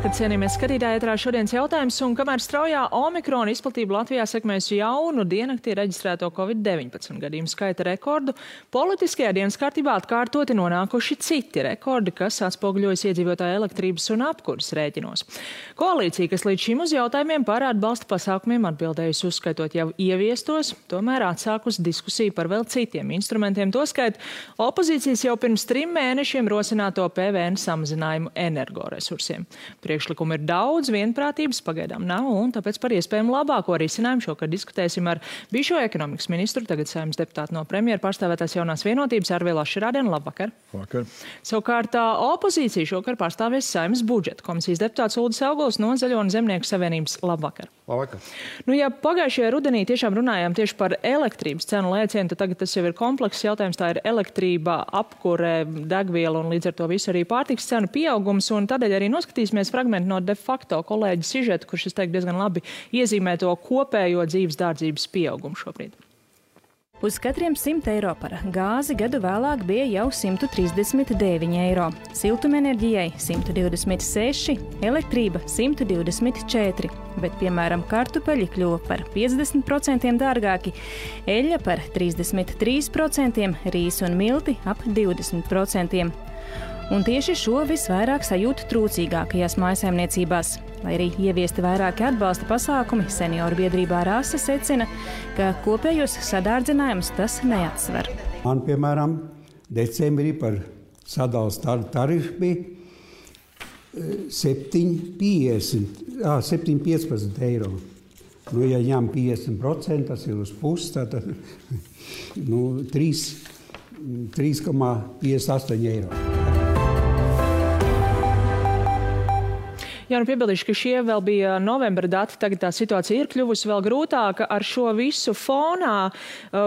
Labvakar, cienījamies skatītāji, ētrā šodienas jautājums, un kamēr straujā omikrona izplatība Latvijā sekmējusi jaunu diennaktī reģistrēto Covid-19 gadījumu skaita rekordu, politiskajā dienas kārtībā atkārtoti nonākuši citi rekordi, kas atspoguļojas iedzīvotāju elektrības un apkuras rēķinos. Koalīcija, kas līdz šim uz jautājumiem par atbalsta pasākumiem atbildējusi uzskaitot jau ieviestos, tomēr atsākus diskusiju par vēl citiem instrumentiem, toskait opozīcijas jau pirms 3 mēnešiem rosināto PVN samazinājumu energoresursiem. Priekšlikumu ir daudz, vienprātības pagaidām nav, un tāpēc par iespējamu labāko risinājumu šokar diskutēsim ar bijušo ekonomikas ministru, tagad Saeimas deputātu no premjera pārstāvētās Jaunās vienotības Arvila Šarādēna. Labvakar. Labvakar. Savukārt opozīcija šokar pārstāvēs Saeimas budžeta komisijas deputāts Uldis Auguls no Zaļo un Zemnieku savienības. Labvakar. Labvakar. Ja pagājušajā rudenī tiešām runājām tieši par elektrības cenu lēcienu, tad tagad tas jau ir komplekss jautājums. Tā ir elektrība, apkure, degviela un līdz ar to visu arī pārtiks cenu pieaugums, un tādēļ arī noskatīsimies fragmentu no de facto kolēģa sižeta, kurš, es teiktu, diezgan labi iezīmē to kopējo dzīves dārdzības pieaugumu šobrīd. Uz katriem 100 eiro par gāzi gadu vēlāk bija jau 139 eiro, siltumenerģijai 126, elektrība 124, bet, piemēram, kartupeļi kļuva par 50% dārgāki, eļļa par 33%, rīs un milti ap 20%. Un tieši šo visvairāk sajūt trūcīgākajās mājsaimniecībās. Lai arī ieviesti vairāki atbalsta pasākumi, senioru biedrībā Rasa secina, ka kopējos sadārdzinājumus tas neatsver. Man, piemēram, decembrī par sadalas tarifu bija 7,15 eiro. Ja ņem 50%, tas ir uz pusi, tad 3,58 eiro. Jā, piebildīšu, ka šie vēl bija novembra dati, tagad tā situācija ir kļuvusi vēl grūtāka ar šo visu fonā.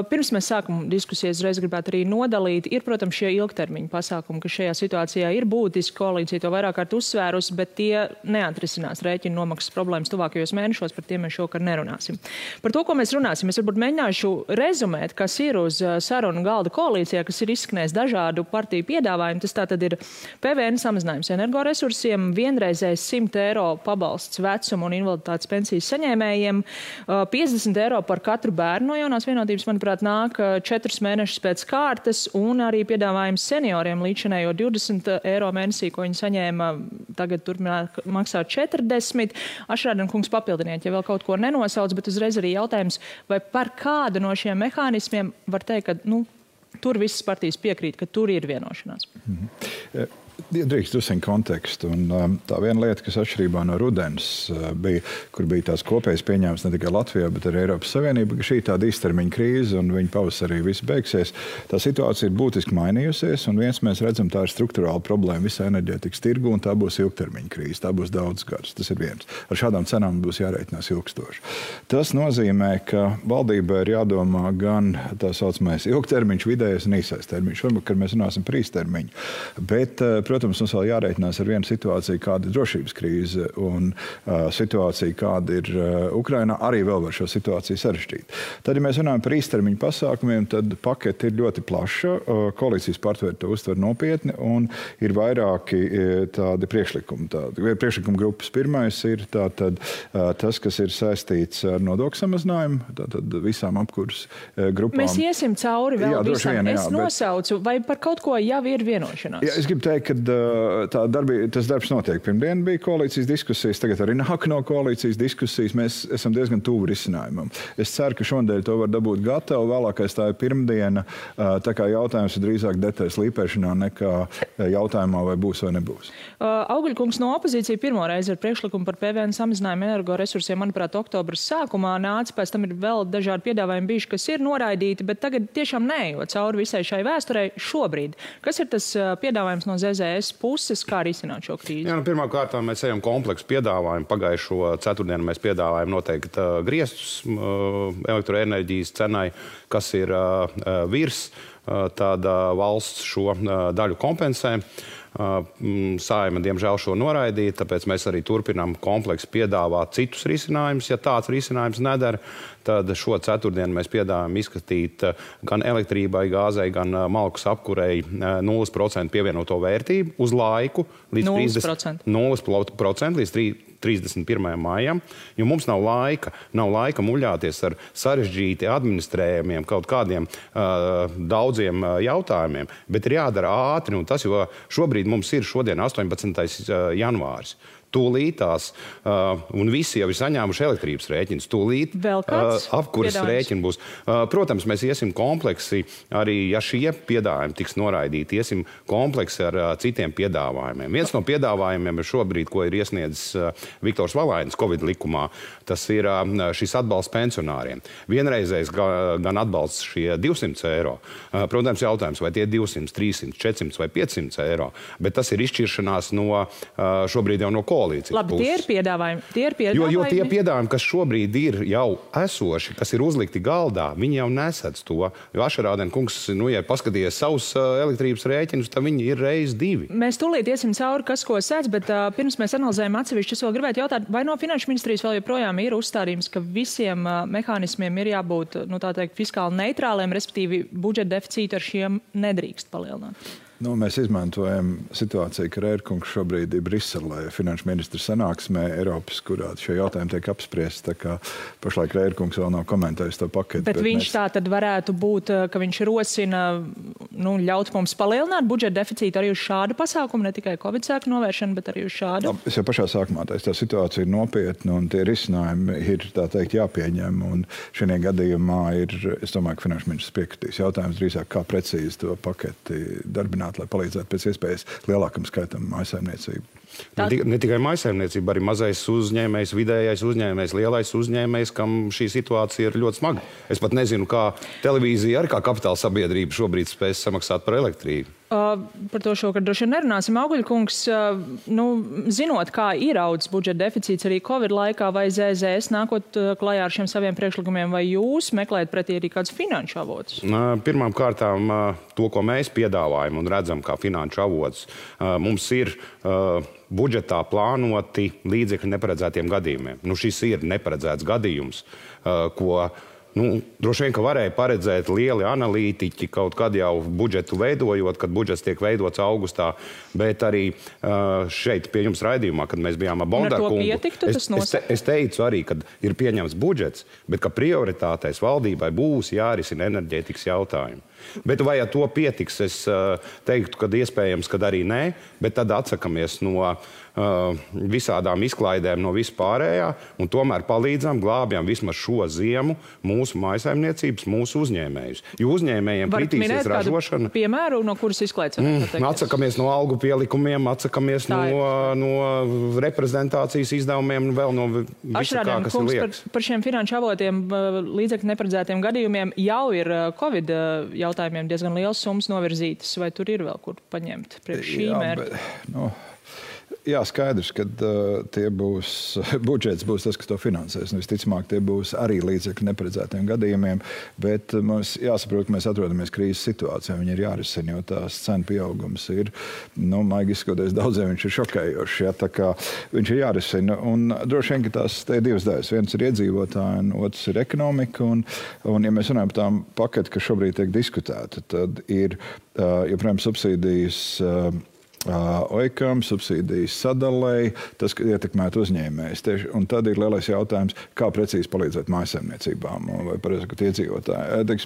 Pirms mēs sākam diskusijas, reiz gribētu arī nodalīt. Ir, protams, šie ilgtermiņa pasākumi, kas šajā situācijā ir būtiski, koalīcija to vairāk kārt uzsvērusi, bet tie neatrisinās rēķinu nomaksas problēmas tuvākajos mēnešos, par tiem mēs šokar nerunāsim. Par to, ko mēs runāsim, es varbūt mēģināšu rezumēt, kas ir uz sarunu galda koalīcijā, kas ir izskanējis dažādu partiju piedāvājumu. Tas tātad ir PVN samazinājums energoresursiem, vienreizējs 100 eiro pabalsts vecuma un invaliditātes pensijas saņēmējiem, 50 eiro par katru bērnu no Jaunās vienotības, manuprāt, nāk 4 mēnešus pēc kārtas, un arī piedāvājums senioriem līdzinējo 20 eiro mēnesī, ko viņi saņēma, tagad turpināt maksāt 40. Ašrādena kungs, papildiniet, ja vēl kaut ko nenosauc, bet uzreiz arī jautājums, vai par kādu no šiem mehānismiem var teikt, ka tur visas partijas piekrīt, ka tur ir vienošanās. Drīkst uzsākt kontekstu. Un, tā viena lieta, kas atšķirībā no rudens bija, kur bija tās kopējas pieņēmums ne tikai Latvijā, bet arī Eiropas Savienība, ka šī tāda īstermiņa krīze un viņa pavasarī viss beigsies. Tā situācija ir būtiski mainījusies, un viens mēs redzam, tā ir strukturāla problēma visā enerģētikas tirgu, un tā būs ilgtermiņa krīze. Tā būs daudz gadus. Tas ir viens. Ar šādām cenām būs jārēķinās ilgstoši. Tas nozīmē, ka valdībai ir jādomā gan tā saucamais ilgtermiņš, vidējais un īsais termiņš. Varbūt, kad mēs runāsim par īstermiņu. Bet, protams, mums vēl jārēķinās ar vienu situāciju, kāda ir drošības krīze un situācija, kāda ir Ukrainā, arī vēl var šo situāciju sarežģīt. Tad, ja mēs runājam par īstermiņu pasākumiem, tad paketi ir ļoti plaša, koalīcijas partneri to uztver nopietni un ir vairāki tādi priekšlikumi. Priekšlikuma grupas pirmais ir tātad tas, kas ir saistīts ar nodokļu samazinājumu, tātad visām apkuras grupām. Mēs iesim cauri vēl visam. Es nosaucu, vai par kaut ko jau ir vienošanās? Jā, es gribu teikt, ka tas darbs notiek. Pirmdien bija koalīcijas diskusijas, tagad arī nāk no koalīcijas diskusijas. Mēs esam diezgan tuvu risinājumam. Es ceru, ka šodien to var dabūt gatavu. Vēlākais tā ir pirmdiena. Tā kā jautājums ir drīzāk detaļas līpēšanā nekā jautājumā, vai būs vai nebūs. Augļkungs no opozīcija pirmo reizi ar priekšlikumu par PVN samazinājumu energoresursiem, manuprāt, oktobra sākumā nāca. Pēc tam ir vēl dažādi piedāvājumi bijuši, kas ir noraidīti, bet tagad tiešām neejot cauri visai šai vēsturei šobrīd. Kas ir tas piedāvājums no ZZS puses, kā risināt šo krīzi? Jā, pirmkārt, mēs ejam kompleksu piedāvājumu. Pagājušo ceturtdienu mēs piedāvājam noteikti griestus elektroenerģijas cenai, kas ir virs tad valsts šo daļu kompensē. Saeima, diemžēl, šo noraidīja, tāpēc mēs arī turpinām kompleksi piedāvāt citus risinājumus. Ja tāds risinājums nedara, tad šo ceturtdienu mēs piedāvājam izskatīt gan elektrībai, gāzei, gan malkas apkurei 0% pievienoto vērtību uz laiku līdz 0% līdz 31. maijam, jo mums nav laika muļāties ar sarežģīti administrējumiem kaut kādiem daudziem jautājumiem, bet ir jādara ātri, un tas, jo šobrīd mums ir šodien 18. janvāris. Tūlītās, un visi jau ir saņēmuši elektrības rēķinus. Tūlīt apkuras rēķini būs. Protams, mēs iesim kompleksi, arī ja šie piedāvājumi tiks noraidīti, iesim kompleksi ar citiem piedāvājumiem. Viens no piedāvājumiem ir šobrīd, ko ir iesniedzis Viktors Valainis Covid likumā, tas ir šis atbalsts pensionāriem. Vienreizējs gan atbalsts šie 200 eiro. Protams, jautājums, vai tie 200, 300, 400 vai 500 eiro, bet tas ir izšķiršanās no šobrīd jau no koalīcijas. Labi, tie ir piedāvājumi. Jo tie piedāvājumi, kas šobrīd ir jau esoši, kas ir uzlikti galdā, viņi jau nesedz to. Jo Ašarādena kungs, ja paskatījies savus elektrības rēķinus, tad viņi ir reiz 2. Mēs tūlīt iesim cauri, kas ko sedz, bet pirms mēs analizējam atsevišķi, es vēl gribētu jautāt, vai no Finanšu ministrijas vēl joprojām ir uzstādījums, ka visiem mehānismiem ir jābūt, tā teikt, fiskāli neitrāliem, respektīvi budžeta deficītu ar šiem nedrīkst palielināt? Mēs izmantojam situāciju, ka Rērkungs šobrīd ir Briselē, finanšu ministra sanāksmē Eiropas, kurā šie jautājumi tiek apspriesti. Tā kā pašlaik Rērkungs vēl nav komentējis to paketi. Bet viņš tā tad varētu būt, ka viņš rosina ļaut mums palielināt budžeta deficītu arī uz šādu pasākumu, ne tikai Covid sēku novēršanu, bet arī uz šādu? Es jau pašā sākumā teicu, tā situācija ir nopietna un tie risinājumi ir, tā teikt, jāpieņem. Un šajā gadījumā es domāju, ka finanšu ministrs piekritīs. Jautājums drīzāk, kā precīzi to paketi darbināt, lai palīdzētu pēc iespējas lielākam skaitam mājsaimniecību. Ne tikai mājsaimniecība, arī mazais uzņēmējs, vidējais uzņēmējs, lielais uzņēmējs, kam šī situācija ir ļoti smaga. Es pat nezinu, kā televīzija arī kā kapitāla sabiedrība šobrīd spēs samaksāt par elektrību. Par to šokar droši vien nerunāsim. Auguļkungs, zinot, kā ir audzis budžeta deficīts arī Covid laikā, vai ZZS nākot klajā ar šiem saviem priekšlikumiem, vai jūs meklējat pretī arī kādus finanšu avotus? Pirmām kārtām to, ko mēs piedāvājam un redzam kā finanšu avotus, mums ir budžetā plānoti līdzekļi neparedzētiem gadījumiem. Šis ir neparedzēts gadījums, ko droši vien, ka varēja paredzēt lieli analītiķi kaut kad jau budžetu veidojot, kad budžets tiek veidots augustā, bet arī šeit pie jums raidījumā, kad mēs bijām ar Bondarkungu, es teicu arī, kad ir pieņemts budžets, bet ka prioritātais valdībai būs jārisina enerģētikas jautājumi. Bet vai ar to pietiks, es teiktu, ka iespējams, kad arī nē, bet tad atsakamies no visādām izklaidēm no vispārējā un tomēr palīdzam, glābjam vismaz šo ziemu mūsu mājsaimniecības, mūsu uzņēmējus. Jo uzņēmējiem kritīsies ražošana. Piemēru, no kuras izklaides? Atsakamies no algu pielikumiem, atsakamies no reprezentācijas izdevumiem un vēl no visu kā, kas ir liekas. Par šiem finanšu avotiem līdzekļu neparedzētiem gadījumiem jau ir Covid jautājumiem diezgan liels summas novirzītas, vai tur ir vēl kur paņemt priekš šī mērķa? Jā, skaidrs, ka budžets būs tas, kas to finansēs. Visticamāk, tie būs arī līdzekļi neparedzētiem gadījumiem, bet mums jāsaprot, ka mēs atrodamies krīzes situācijā. Viņi ir jārisina, jo tās cenu pieaugums ir, maigi izskoties, daudziem viņš ir šokējošs. Ja, tā kā viņš ir jārisina. Un droši vien, ka tās te ir divas daļas. Viens ir iedzīvotāji, un otrs ir ekonomika. Un ja mēs runājam par tām paketi, kas šobrīd tiek diskutēta, tad ir, joprojām, subsīdijas OIKam, subsīdijas sadalēji, tas ietekmētu uzņēmējus. Un tad ir lielais jautājums, kā precīzi palīdzēt mājsaimniecībām vai, pareizi sakot, iedzīvotāji.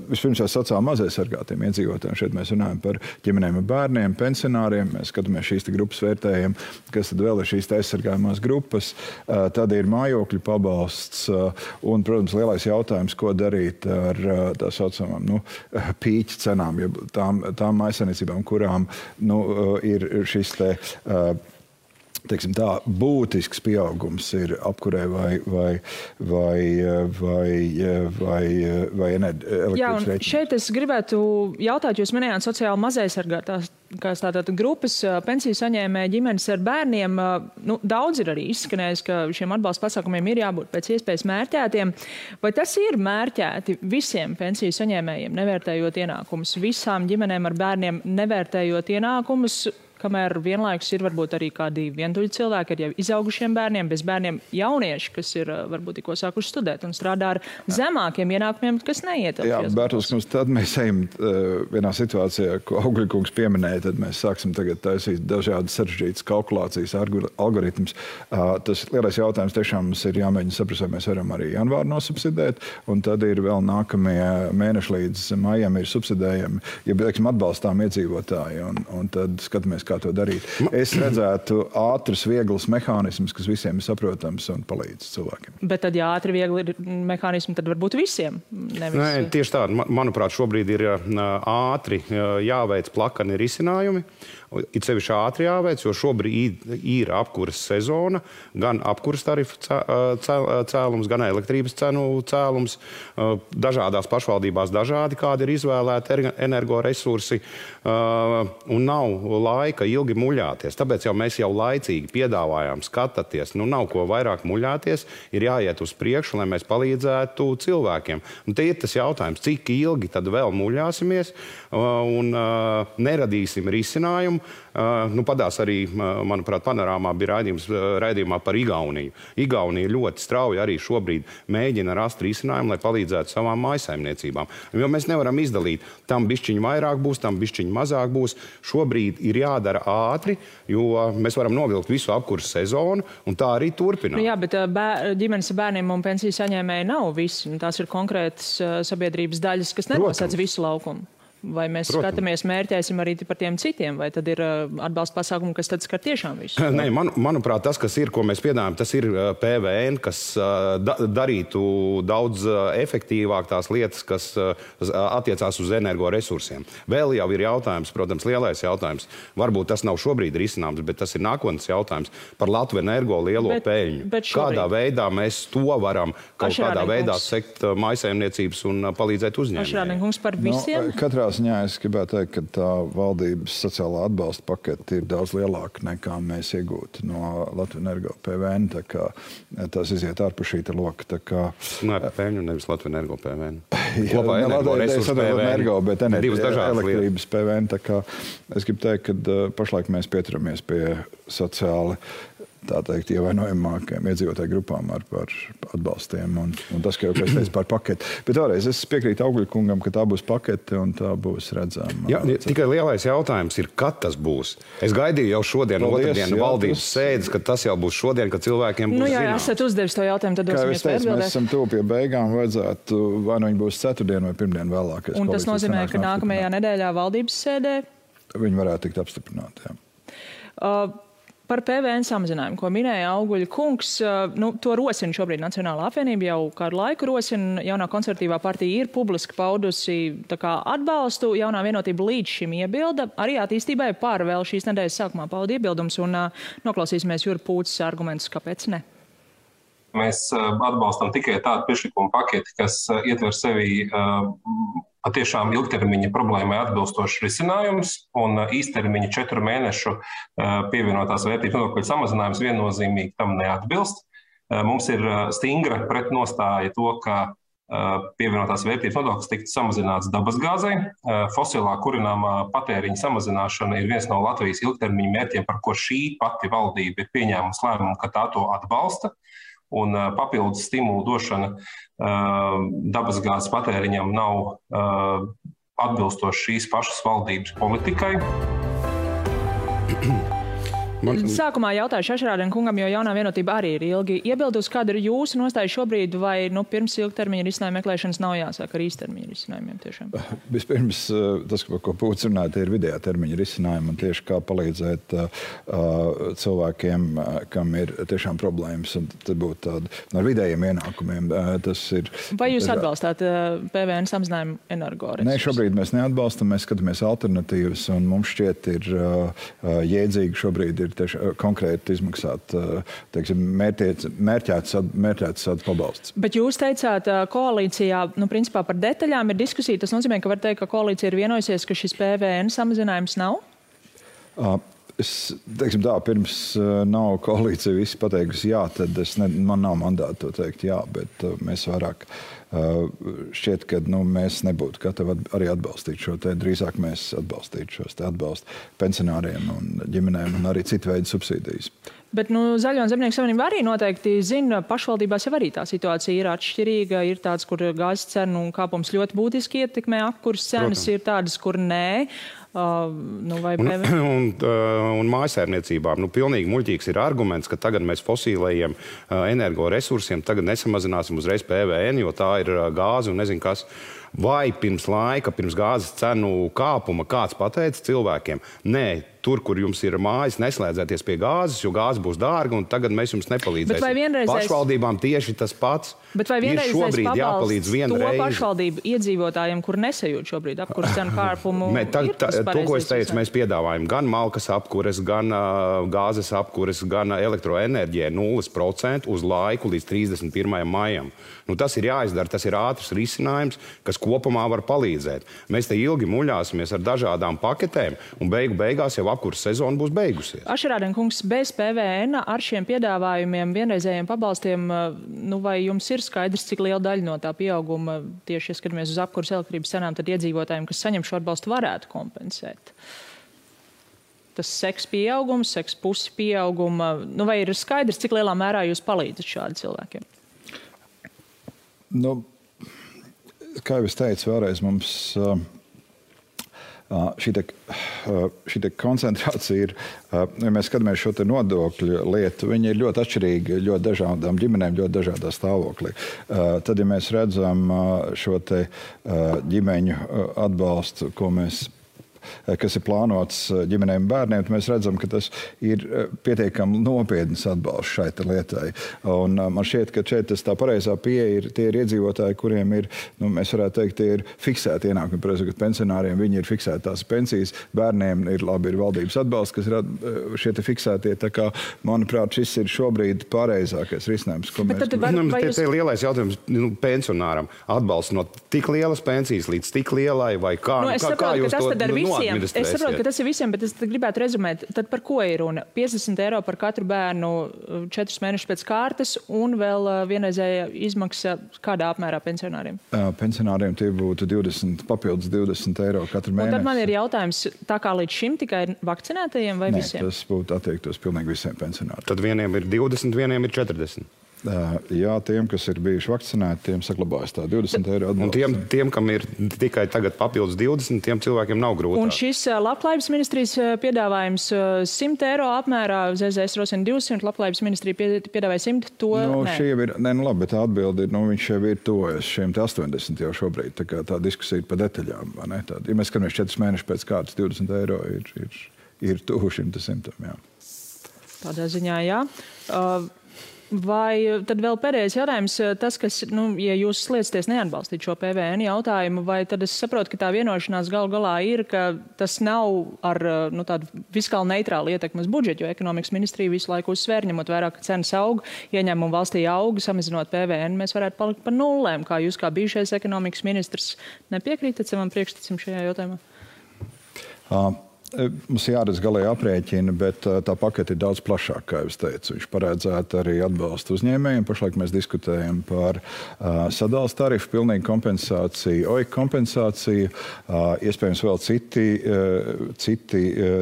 Vispirms jau sacām mazaisargātiem iedzīvotājiem. Šeit mēs runājam par ģimenēm ar bērniem, pensionāriem. Mēs skatāmies šīs grupas vērtējiem, kas tad vēl ir šīs aizsargājumās grupas. Tad ir mājokļu pabalsts un, protams, lielais jautājums, ko darīt ar tā saucamām pīķu cenām, tām mājsaimniecībām, kurām ir šis teiksim tā, būtisks pieaugums ir apkurē vai elektrības rēķiniem. Šeit es gribētu jautāt, jūs minējāt sociāli mazaisargātās tātad grupas pensiju saņēmēju ģimenes ar bērniem. Daudz ir arī izskanējis, ka šiem atbalsta pasākumiem ir jābūt pēc iespējas mērķētiem. Vai tas ir mērķēti visiem pensiju saņēmējiem, nevērtējot ienākumus, visām ģimenēm ar bērniem nevērtējot ienākumus, kamēr vienlaikus ir varbūt arī kādi vientuļi cilvēki ar jau izaugušiem bērniem, bez bērniem jaunieši, kas ir varbūt tikko sākuši studēt un strādā ar zemākiem ienākumiem, kas neietilpst. Jā, Bērtuls, tad mēs ejam vienā situācijā, ko Augļkungs pieminēja, tad mēs sāksim tagad taisīt dažādas sarežģītas kalkulācijas, algoritmus. Tas lielais jautājums tiešām mums ir jāmēģina saprast, vai mēs varam arī janvāru nosubsidēt, un tad ir vēl nākamie mēneši līdz maijam ir subsidējami, ja, teiksim, atbalstām iedzīvotāji, un tad skatāmies, kā to darīt. Es redzētu ātras, vieglas mehānismus, kas visiem ir saprotams un palīdz cilvēkiem. Bet tad, ja ātri, viegli ir mehānismi, tad varbūt visiem. Nevis... Nē, tieši tā. Manuprāt, šobrīd ir ātri jāveic plakani risinājumi. It sevišķi ātri jāveic, jo šobrīd ir apkuras sezona, gan apkuras tarifu cēlums, gan elektrības cenu cēlums. Dažādās pašvaldībās dažādi, kādi ir izvēlēti energoresursi, un nav laika ilgi muļāties. Tāpēc mēs jau laicīgi piedāvājām, skatāties, nav ko vairāk muļāties, ir jāiet uz priekšu, lai mēs palīdzētu cilvēkiem. Un te ir tas jautājums, cik ilgi tad vēl muļāsimies un neradīsim risinājumu. Padās arī, manuprāt, panorāmā bija raidījumā par Igauniju. Igaunija ļoti strauji arī šobrīd mēģina rast risinājumu, lai palīdzētu savām mājsaimniecībām. Jo mēs nevaram izdalīt, tam bišķiņi vairāk būs, tam bišķiņi mazāk būs. Šobrīd ir jādara ātri, jo mēs varam novilkt visu apkuras sezonu, un tā arī turpināt. Jā, bet ģimenes ar bērniem un pensiju saņēmēji nav visi. Tās ir konkrētas sabiedrības daļas, kas nenosēc visu laukumu. Vai mēs skatāmies, mērķēsim arī par tiem citiem, vai tad ir atbalsta pasākumi, kas tad skar tiešām visu? Nē, manuprāt, tas, kas ir, ko mēs piedāvājam, tas ir PVN, kas darītu daudz efektīvāk tās lietas, kas attiecās uz energoresursiem. Vēl jau ir jautājums, protams, lielais jautājums. Varbūt tas nav šobrīd risināms, bet tas ir nākotnes jautājums par Latviju Energo lielo peļņu. Kādā veidā mēs to varam kaut kādā veidā sekt mājsaimniecības un palīdzēt uzņēmējiem? Ašrādnieks par visiem? Ziņā es gribētu teikt, ka tā valdības sociālā atbalsta pakete ir daudz lielāka nekā mēs iegūtu no Latvijas Energo PVN. Tā kā tas iziet ārpus šī loka. Nē, peļņu nevis Latvijas Energo PVN. Kopā energoresursu PVN, bet elektrības PVN. Tā kā es gribu teikt, ka pašlaik mēs pieturamies pie sociāli tā teikt, ievainojamākajām iedzīvotāju grupām ar atbalstiem. Un tas, ka jau es teicu par paketi. Bet vēlreiz es piekrītu Augļkungam, ka tā būs pakete un tā būs redzama. Jā, tikai lielais jautājums ir, kad tas būs. Es gaidīju jau šodien, otrdien valdības sēdes, ka tas jau būs šodien, kad cilvēkiem būs jā, esat uzdevis to jautājumu, tad dosim iespēju atbildēt. Mēs esam tuvu pie beigām, vajadzētu vai nu viņi būs ceturtdien vai pirmdien vēlākais. Un tas nozīmē, ka nākamajā nedēļā valdības sēdē? Viņi varētu tikt apstiprināti, jā. Par PVN samazinājumu, ko minēja Augļkungs, to rosina šobrīd Nacionālā apvienība, jau kādu laiku rosina. Jaunā konservatīvā partija ir publiski paudusi atbalstu. Jaunā vienotība līdz šim iebilda. Arī attīstībai par vēl šīs nedēļas sākumā pauda iebildums, un noklausīsimies Jura Pūces argumentus, kāpēc ne. Mēs atbalstam tikai tādu priekšlikumu paketi, kas ietver sevi patiešām ilgtermiņa problēmai atbilstošs risinājums un īstermiņa 4 mēnešu pievienotās vērtības nodokļu samazinājums viennozīmīgi tam neatbilst. Mums ir stingra pretnostāja to, ka pievienotās vērtības nodoklis tiktu samazināts dabasgāzei. Fosilā kurināmā patēriņa samazināšana ir viens no Latvijas ilgtermiņa mērķiem, par ko šī pati valdība ir pieņēmusi lēmumu, ka tā to atbalsta. Un papildus stimulu došana dabasgāzes patēriņam nav atbilstoši šīs pašas valdības politikai. Sākumā jautājuši Ašrādniekungam, jo Jaunā vienotība arī ir ilgi iebildusi. Kāda ir jūsu nostāja šobrīd, vai pirms ilgtermiņa risinājuma meklēšanas nav jāsāk ar īstermiņa risinājumiem tiešām? Vispirms, tas, ko Pūcis runāja, ir vidējā termiņa risinājumi un tieši kā palīdzēt cilvēkiem, kam ir tiešām problēmas, un tad būtu tāda ar vidējiem ienākumiem. Vai jūs atbalstāt PVN samazinājumu energoresursus? Nē, šobrīd mēs neatbalstam, mēs skatāmies alternatīvas, un mums šķiet ir jēdzīgi šobrīd ir konkrēti izmaksāt, teiksim, mērķēts pabalsts. Bet jūs teicāt, koalīcijā, principā par detaļām ir diskusija. Tas nozīmē, ka var teikt, ka koalīcija ir vienojusies, ka šis PVN samazinājums nav? Teiksim tā, pirms nav koalīcija visi pateikusi jā, tad man nav mandāta to teikt jā, bet mēs vairāk šķiet, ka mēs nebūtu gatavi arī atbalstīt šo te, drīzāk mēs atbalstītu šos te atbalstu pensionāriem un ģimenēm un arī citu veidu subsīdijas. Bet Zaļo un Zemnieku savienība arī noteikti zina, pašvaldībās jau arī tā situācija ir atšķirīga. Ir tāds, kur gāzes cenu kāpums ļoti būtiski ietekmē apkurs cenas, ir tādas, kur nē. Un mājasēmniecībām pilnīgi muļķīgs ir arguments, ka tagad mēs fosīlējiem energoresursiem tagad nesamazināsim uzreiz PVN, jo tā ir gāze un nezinu kas. Vai pirms laika, pirms gāzes cenu kāpuma kāds pateica cilvēkiem, nē, tur, kur jums ir mājas, neslēdzēties pie gāzes, jo gāze būs dārga un tagad mēs jums nepalīdzēsim. Pašvaldībām tieši tas pats. Bet vai vienreizējais pabalsts to pašvaldību iedzīvotājiem, kur nesajūt šobrīd apkures cenu kāpumu? To, ko es teicu, mēs piedāvājam gan malkas apkures, gan gāzes apkures, gan elektroenerģijai 0% uz laiku līdz 31. maijam. Tas ir jāizdara, tas ir ātrs risinājums, kas kopumā var palīdzēt. Mēs te ilgi muļāsimies ar dažādām paketēm un beigās jau apkures sezona būs beigusies. Ašerādien kungs, bez PVN ar šiem piedāvājumiem, vienreizējiem pabalstiem, vai jums ir skaidrs, cik liela daļa no tā pieauguma tieši, ja skatāmies uz apkures elektrības cenām, tad iedzīvotājiem, kas saņem šo atbalstu, varētu kompensēt? Tas seks pieaugums, seks pusi pieauguma, vai ir skaidrs, cik lielā mērā jūs palīdzat šādi cilvēkiem? Kā jau es teicu, vēlreiz mums šī koncentrācija ir, ja mēs skatāmies šo te nodokļu lietu, viņi ir ļoti atšķirīgi, ļoti dažādām ģimenēm, ļoti dažādā stāvoklī. Tad, ja mēs redzam šo te ģimeņu atbalstu, kas ir plānots ģimenēm un bērniem, tad mēs redzam, ka tas ir pietiekami nopietns atbalsts šai lietai. Un man šķiet, ka šeit tā pareizā pieeja ir tie iedzīvotāji, kuriem ir, mēs varētu teikt, tie ir fiksēti ienākumi. Protams, pensionāriem viņi ir fiksēti tās pensijas, bērniem ir valdības atbalsts, kas ir šie te fiksētie. Tā kā, manuprāt, šis ir šobrīd pareizākais risinājums, ko mēs... Tas ir lielais jautājums pensionāram. Atbalsts no tik lielas pensijas līdz tik lielai vai kā? Kā jūs to Es saprotu, ka tas ir visiem, bet es gribētu rezumēt, tad par ko ir runa? 50 eiro par katru bērnu 4 mēnešus pēc kārtas un vēl vienreizēja izmaksa kādā apmērā pensionāriem? Pensionāriem tie būtu papildus 20 eiro katru mēnesi. Un tad man ir jautājums, tā kā līdz šim tikai vakcinētajiem vai visiem? Nē, tas būtu attiektos pilnīgi visiem pensionāriem. Tad vieniem ir 20, vieniem ir 40. Jā, tiem, kas ir bijuši vakcinēti, tiem saglabājas tā 20 eiro atbalsts. Un tiem, kam ir tikai tagad papildus 20, tiem cilvēkiem nav grūtāk. Un šis Labklājības ministrijas piedāvājums 100 eiro apmērā, ZZS rosina 200, Labklājības ministrija piedāvāja 100, to nē. Šī jau ir, labi, bet tā atbildi ir, viņš jau ir tojas šiem 80 jau šobrīd, tā kā tā diskusija ir pa detaļām, vai ne? Ja mēs skatāmies 4 mēnešus pēc kārtas, 20 eiro ir tuvu šim 100, jā. Tādā ziņā, jā. Vai tad vēl pēdējais jautājums, tas, kas, ja jūs sliecaties neatbalstīt šo PVN jautājumu, vai tad es saprotu, ka tā vienošanās galu galā ir, ka tas nav ar tādu fiskāli neitrālu ietekmi uz budžetu, jo ekonomikas ministrija visu laiku uzsver, ņemot vērā, ka cenas aug, ieņēmumi valstī aug, samazinot PVN, mēs varētu palikt par nullēm. Kā jūs kā bijušais ekonomikas ministrs nepiekrītat savam priekšstacim šajā jautājumā? Mums jāredz galēji aprēķina, bet tā pakete ir daudz plašāka, kā jūs teicu. Viņš paredzētu arī atbalstu uzņēmējiem. Pašlaik mēs diskutējam par sadales tarifu, pilnīgu kompensāciju, OIK kompensāciju, iespējams vēl citi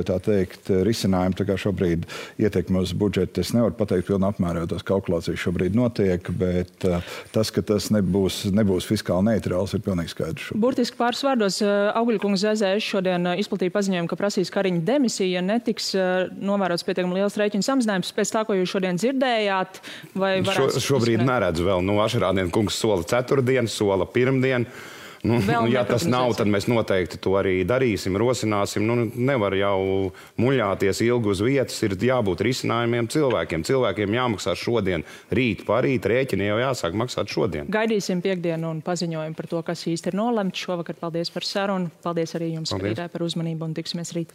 tā teikt, risinājumi. Tā kā šobrīd ietekmi uz budžetu es nevaru pateikt pilnā apmērā, jo tās kalkulācijas šobrīd notiek, bet tas, ka tas nebūs fiskāli neitrāls, ir pilnīgi skaidrs. Burtiski pāris vārdos Augļkungs ZZS šodien izplatīja paziņojumu, ka prasīs Kariņa demisiju, ja netiks novērots pietiekami liels rēķinu samazinājums pēc tā, ko jūs šodien dzirdējāt? Šobrīd neredzu vēl. Ašerādien kungs sola ceturtdienu, sola pirmdien. Ja tas nav, tad mēs noteikti to arī darīsim, rosināsim. Nevar jau muļāties ilgi uz vietas, ir jābūt risinājumiem cilvēkiem. Cilvēkiem jāmaksā šodien, rīt, parīt, rēķini jau jāsāk maksāt šodien. Gaidīsim piekdienu un paziņojumu par to, kas īsti ir nolemts šovakar. Paldies par sarunu. Paldies arī jums, skatītāji, par uzmanību un tiksimies rīt.